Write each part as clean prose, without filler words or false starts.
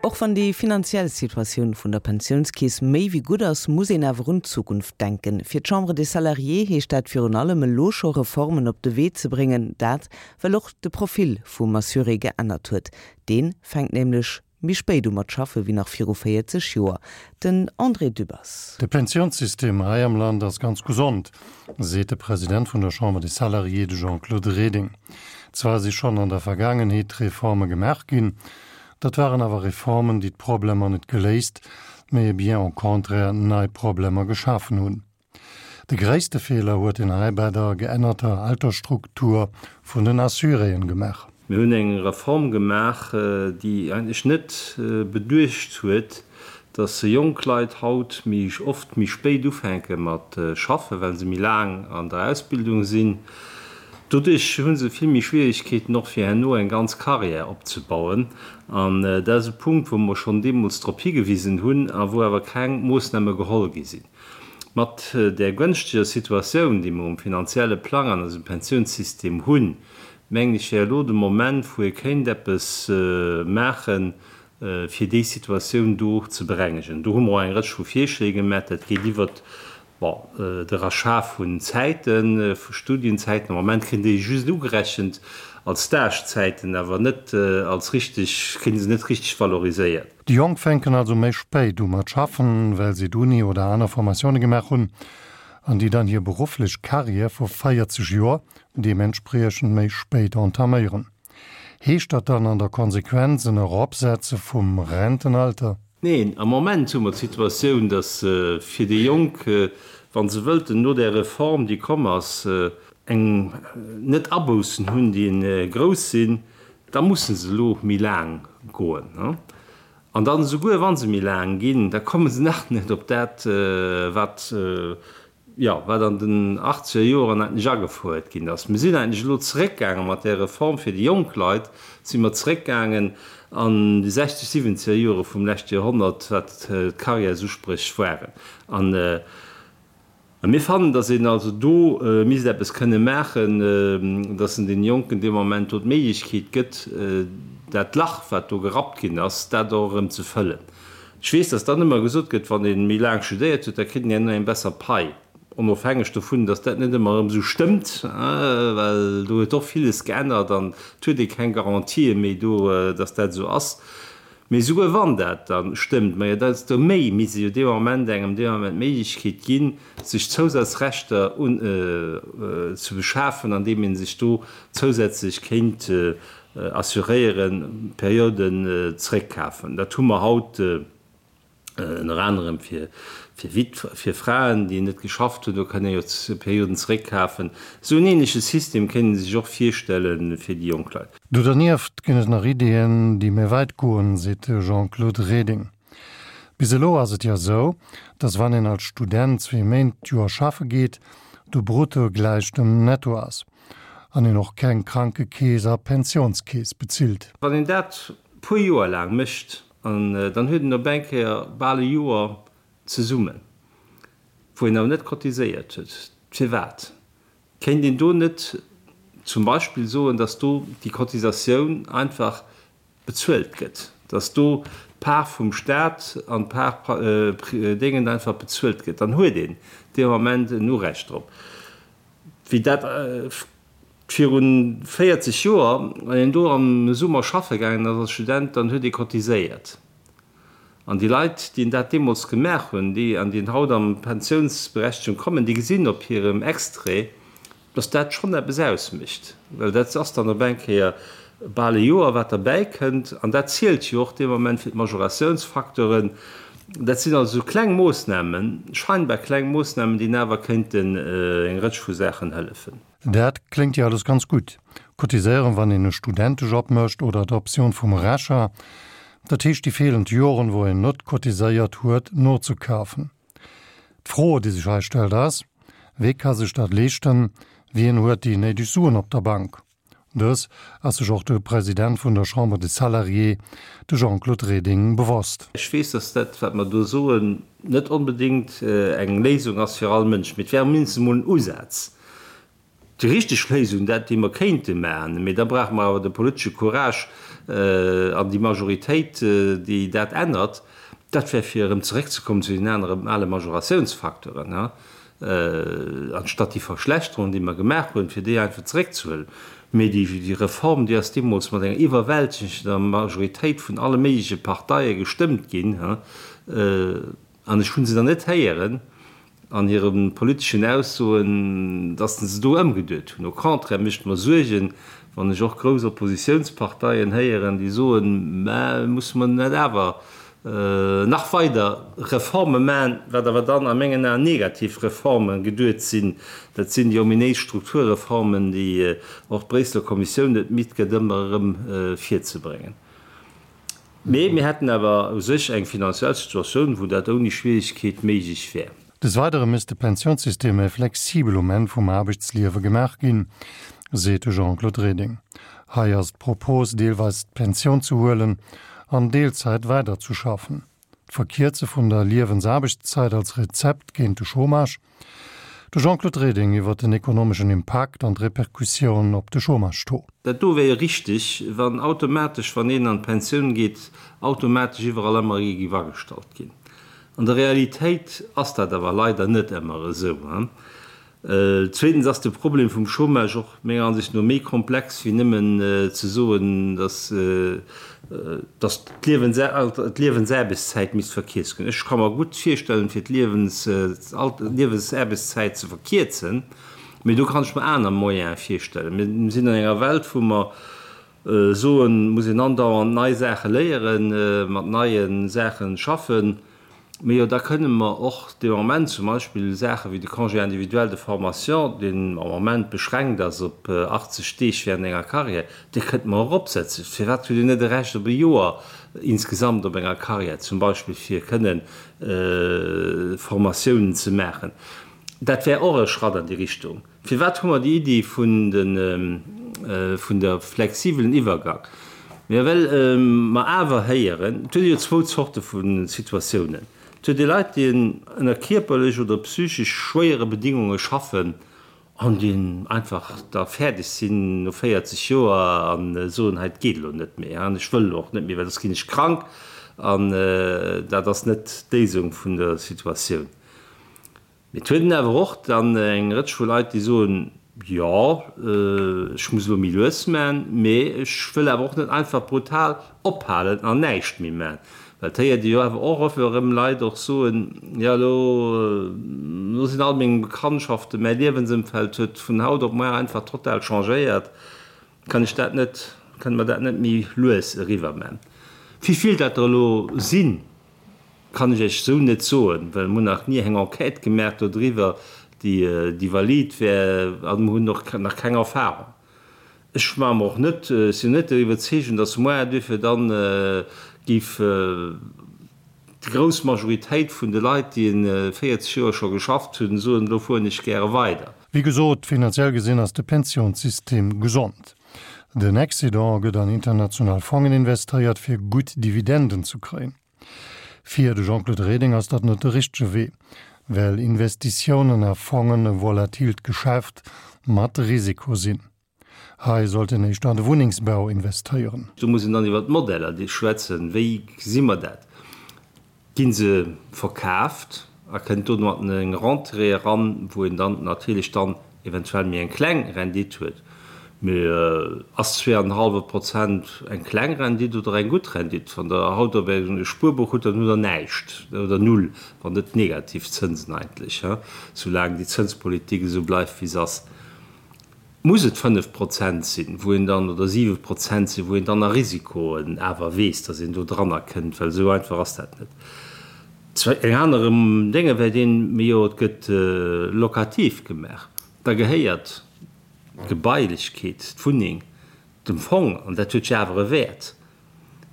Och wann déi finanziell Situatioun vun der Pensiounskeess méi wéi gutt ass, muss een awer un d'Zukunft denken. Fir d'Chambre des Salariés heescht dat virun allem elo scho Reformen op de Wee ze bréngen. Dat well och de Profil vum Assuré geännert huet. Dee fänkt nämlech méi spéit u mat schaffe wéi nach viru 40 Joer. Den André Dübbers. De Pensiounssystem hei am Land ass ganz gesond, seet de President vun der Chambre des Salariés, de Jean-Claude Reding. Zwar si schonn an der Vergaangenheet Reforme gemaach ginn, dat waren awer Reformen, déi d'Problemer net geléist, mee bien au contraire nei Problemer geschafen hunn. De gréisste Feeler huet een hei bei der geännerter Altersstruktur vun den Assuréen gemaach. Mir hunn eng Reform gemaach, déi eigentlech net beduecht huet, dass jonk Leit haut méi oft méi spéit ufänke mat schaffen, well se méi laang an der Ausbildung sinn. Doduerch hu se vill méi Schwierigkeeten och fir herno eng ganz Carrière opzebauen. An dat ass e Punkt, wou mer schonn deemools drop higewisen hunn a wou awer keng Moossname geholl gi sinn. Mat där gënschteger Situatioun, déi mer um finanzielle Plang an eisem Pensiounssystem hunn, mengen ech, wär elo de Moment, wou ee kéint eppes maachen, fir déi Situatioun do ze berengegen. Do hu mer och eng Rëtsch vu Virschléi gemaach. Dat geet iwwert, bon, de Rachat vun Zäiten, vu Studienzäiten. Am Moment kréien déi just ugerechent als Stagezäiten, awer net als richteg, kréie se net richteg valoriséiert. Déi Jonk fänken also méi spéit u mat schaffen, well si d'Uni oder aner Formatioune gemaach hunn, an déi dann hir berufflech Carrière vu 40 Joer deementspriechend méi spéit entaméieren. Heescht dat dann an der Konsequenz en Eropsetze vum Rentenalter? Neen, am Moment hu mer d'Situatioun, datt fir déi Jonk, wa se wëllten no där Reform, déi komm ass, eng net Aboussen hunn, déi grouss sinn, Da musse se elo méi laang goen. An dann, esouguer wa se méi laang ginn, da komme se nach net op dat, wat, jo, wat an den achtzeger Joren eigentlech agefouert ginn ass. Mir sinn eigentlech elo zeréckgaange mat där Reform fir déi jonk Leit, si mer zeréckgaangen an déi sechzeg, siwwenzeger Jore vum leschte Joerhonnert, wat d'Carrièresuspréch waren. An A mir fannen, datt een also do misst eppes kënne maachen, datt en deene Jonken dee Moment do d'Méiglechkeet gëtt, dat Lach, wat do gerappt ginn ass, dat och erëm ze fëllen. Ech weess, datt dann ëmmer gesot gëtt, wann ee méi laang studéiert huet, da kritt een herno eng besser Pai, onofhängeg dovun, datt dat net ëmmer erëm esou stëmmt, well do huet och villes geännert an et huet ee keng Garantië méi do, datt dat esou ass. Mee esouguer wann dat da stëmmt, majo desto méi misst ee jo dee Moment engem dee Moment d'Méiglechkeet ginn, sech Zousatzrechter un ze beschafen, andeem ee sech do zousätzlech kéint assuréieren, Perioden zréckkafen. Dat hu mer haut ënner anerem fir Witw fir Fraen, déi net geschafft hunn, do kann ee jo Perioden zréckkafen. Esou en ähnleche System kéint ee sech och virstelle fir déi jonk Leit. Do dernieft ginn et nach Ideeën, déi méi wäit goen, seet de Jean-Claude Reding. Bis elo ass et jo esou, datt wann een als Student zwee Méint d'Joer schaffe geet, de Brutto gläich dem Netto ass an een och keng Krankekeess a Pensiounskeess bezilt. Wann een dat puer Joer laang mécht, an dann huet een op eng Kéier bal e Joer zesummen, wou een awer net cotiséiert huet. Firwat? Kéint een do net zum Beispill soen, dass do déi Cotisatioun einfach bezuelt gëtt, dass do d'Part vum Stat an d'Part Déngen einfach bezuelt gëtt? Dann huet een dee Moment en Urecht drop. Wéi dat viru 40 Joer, wann een do am Summer schaffe gaangen ass als Student, dann huet ee cotiséiert. An déi Leit, déi dat deemools gemaach hunn, déi an déi haut an d'Pensiounsberechtegung kommen, déi gesinn op hirem Extrait, dass dat schonn eppes ausmécht, well dat ass dann op eng Kéier bal e Joer, wat derbäi kënnt. An dat zielt jo och dee Moment fir d'Majoratiounsfacteuren. Dat sinn also esou kleng Moossnamen, scheinbar kleng Moossnamen, déi awer kéinten eng Rëtsch vu Saachen hëllefen. Dat kléngt jo alles ganz gutt. Cotiséieren, wann een e Studentejob mécht oder d'Optioun vum Rachat, dat heescht déi feelend Joren, wou een net cotiséiert huet, nozekafen. D'Fro, déi sech hei stellt, ass, Wee ka sech dat leeschten? Wien huet déi néideg Suen op der Bank? Dës ass sech och de President vun der Chambre des Salariés, de Jean-Claude Reding, bewosst. Ech weess, dass dat, wat mer do soen, net onbedéngt eng Léisung ass fir all Mënsch, mee et wär mindestens emol en Usaz. Déi richteg Léisung, dat déi mer kéinte maachen, mee da brauche mer awer de politesche Courage an déi Majoritéit, déi dat ännert, dat wär fir erëm zeréckzekommen zu den anere ale Majoratiounsfacteuren, anstatt déi Verschlechterung, déi mer gemaach hunn, fir déi einfach zeréckzehuelen. Mee déi Reform, déi ass deemools mat enger iwwerwältegender Majoritéit vun alle méigleche Parteie gestëmmt ginn. An ech hu se dann net héieren an hire politeschen Aussoen, datt se do ëmgeduet hunn. Au contraire mécht mer Suergen, wann ech och grouss Oppositiounsparteien héieren, déi soen, Mä musse mer net awer nach weider Reforme maachen, wat awer dann a mengen Aen negativ Reforme geduet sinn. Dat sinn déi ominéis Strukturreformen, déi och d'Bréisseler Kommissioun net midd gëtt, ëmmer erëm virzebréngen. Mee mir hätten awer u sech eng finanziell Situatioun, wou dat ouni Schwierigkeet méiglech wär. Des Weidere misst de Pensiounssystem méi flexibel um Enn vum Aarbechtsliewe gemaach ginn, seet de Jean-Claude Reding. Hei ass d'Propos, deelweis d'Pensioun ze huelen an Deelzäit weiderzeschaffen. D'Verkierze vun der Liewensaarbechtszäit als Rezept géint de Chômage. De Jean-Claude Reding iwwer den ekonomeschen Impakt an d'Repercussioun op de Chômage-Taux. Dat do wär jo richteg, wann automatesch, wann een an d'Pensioun geet, automatesch iwwerall ëmmer ee géif agestallt ginn. An der Realitéit ass dat awer leider net ëmmer esou. Zweetens ass de Problem vum Chômage och menger Ansicht no méi komplex wéi nëmmen ze soen, dass dass d'Liewensaarbechtszäit misst verkierzt ginn. Ech ka mer gutt virstellen, fir d'Liewensaarbechtszäit ze verkierzen, mee do kann ech mer aner Moyene virstellen. Mir sinn an enger Welt, wou mer soen, muss een andauernd nei Saache léieren, mat neie Saache schaffen. Mee jo, da kënne mer och dee Moment zum Beispill Saache wéi de Congé individuel de formation, deen am Moment beschränkt ass op 80 Deeg während enger Carrière, dee kënnte mer eropsetzen. Firwat huet een net e Recht op e Joer insgesamt op enger Carrière zum Beispill, fir kënne Formatiounen ze maachen? Dat wär och e Schratt an déi Richtung. Firwat hu mer déi Iddi vun de, vun der flexibelen Iwwergang? Mä well mer awer héieren, et huet ee jo zwou Zorte vu Situatiounen. Et huet ee Leit, déi ënner kierperlech oder psychesch schwéiere Bedingunge schaffen an déi einfach da fäerdeg sinn no 40 Joer a soen, hei, et geet elo net méi an ech wëll elo och net méi, well soss ginn ech krank. An dat ass net d'Léisung vun der Situatioun. Mee et huet een awer och dann eng Rëtsch vu Leit, déi soen, Jo, ech muss elo méi lues man, mee ech wëll awer och net einfach brutal ophalen an näischt méi man. Well et héiert ee jo awer och oft erëm Leit och soen, Jo, elo, elo sinn all meng Bekanntschaften, mäi Liewensëmfeld huet vun haut op muar einfach total changéiert, kann ech dat net, kënne mer dat net méi lues eriwwer man? Wéi vill dat der elo sinn, Kann ech Iech esou net soen, well mer hunn nach ni eng Enquête gemaach dodriwwer, déi déi valid wär, a mer hunn och nach keng Erfahrung. Ech maache mer och net, ech sinn net der Iwwerzeegung, datt moar duerfir dann géif déi grouss Majoritéit vun de Leit, déi 40 Joer scho geschafft hunn, soen, elo fueren ech gäre weider. Wéi gesot, finanziell gesinn ass de Pensiounssystem gesond. Den Excédent gëtt an international Fongen investéiert, fir gutt Dividenden ze kréien. Fir de Jean-Claude Reding ass dat net de richtege Wee, well Investitiounen a Fongen e volatilt Geschäft mat Risiko sinn. Hei sollt een éischter an de Wunnengsbau investéieren. Do muss een dann iwwer d'Modeller schwätzen, Wéi gesi mer dat? Gi se verkaaft a kënnt domat eng Rentrée eran, wou een dann natierlech dann eventuell méi eng kleng Rendite huet, mee ass zweeanenhallwe Prozent eng kleng Rendite oder eng gutt Rendite? Wann Der haut op e Spuerbuch hutt, dann hutt Der näischt oder null, wann net negativ Zënsen eigentlech, soulaang déi Zënspolitik esou bleift wéi se ass. Muss et 5 Prozent sinn, wou een dann, oder 7 Prozent sinn, wou een dann a Risikoen awer weess, datt een do dranner kënnt, well esou einfach ass dat net. Eng aner Dénge wär deen, mee jo, et gëtt locatif gemaach, da gehéiert d'Gebailechkeet, d'Wunneng dem Fong an dat huet jo awer e Wäert.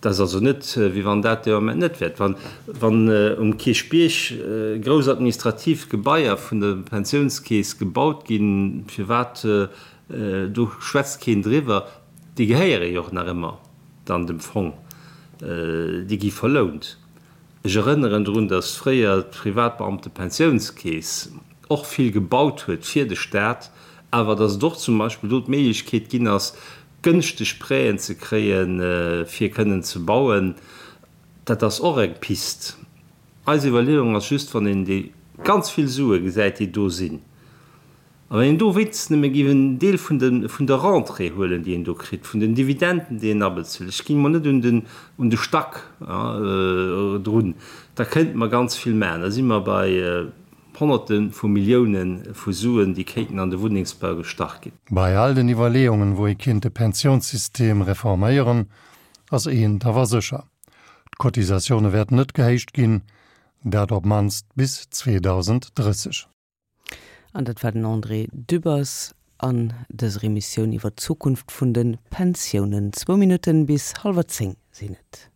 Dat ass also net, wéi wann dat dee Moment net wäert. Wann, wann um Kierchbierg grouss administrativ Gebaier vun der Pensiounskeess gebaut ginn, firwat, do schwätzt keen driwwer, déi gehéiere jo och nach ëmmer dann dem Fong, déi gi verlount. Ech erënneren drun, datt fréier d'Privatbeamtepensiounskeess och vill gebaut huet fir de Staat. Awer datt et och zum Beispill do d'Méiglechkeet ginn ass, gënschteg Prêten ze kréien, fir kënnen ze bauen, dat ass och eng Pist. Eis Iwwerleeung ass just, wann een déi ganz vill Sue gesäit, déi do sinn, a wann een do wéinstens nëmme géif en Deel vun de, vun der Rentrée huelen, déi een do kritt, vun den Dividenden, déi een abezuelt, ech ginn emol net un den, un de Stack drun, da kéinte mer ganz vill maachen. Da si mer bei Honnerte vu Millioune vu Suen, déi kéinten an de Wunnengsbau gestach ginn. Bei all den Iwwerleeungen, wou ee kéint de Pensiounssystem reforméieren, ass eent awer sécher, D'Cotisatioune wäerten net gehéicht ginn, dat op d'mannst bis 2030. An dat war den André Dübbers an dëser Emissioun iwwer d'Zukunft vun de Pensiounen. Zwou Minutten bis hallwer 10 sinn et.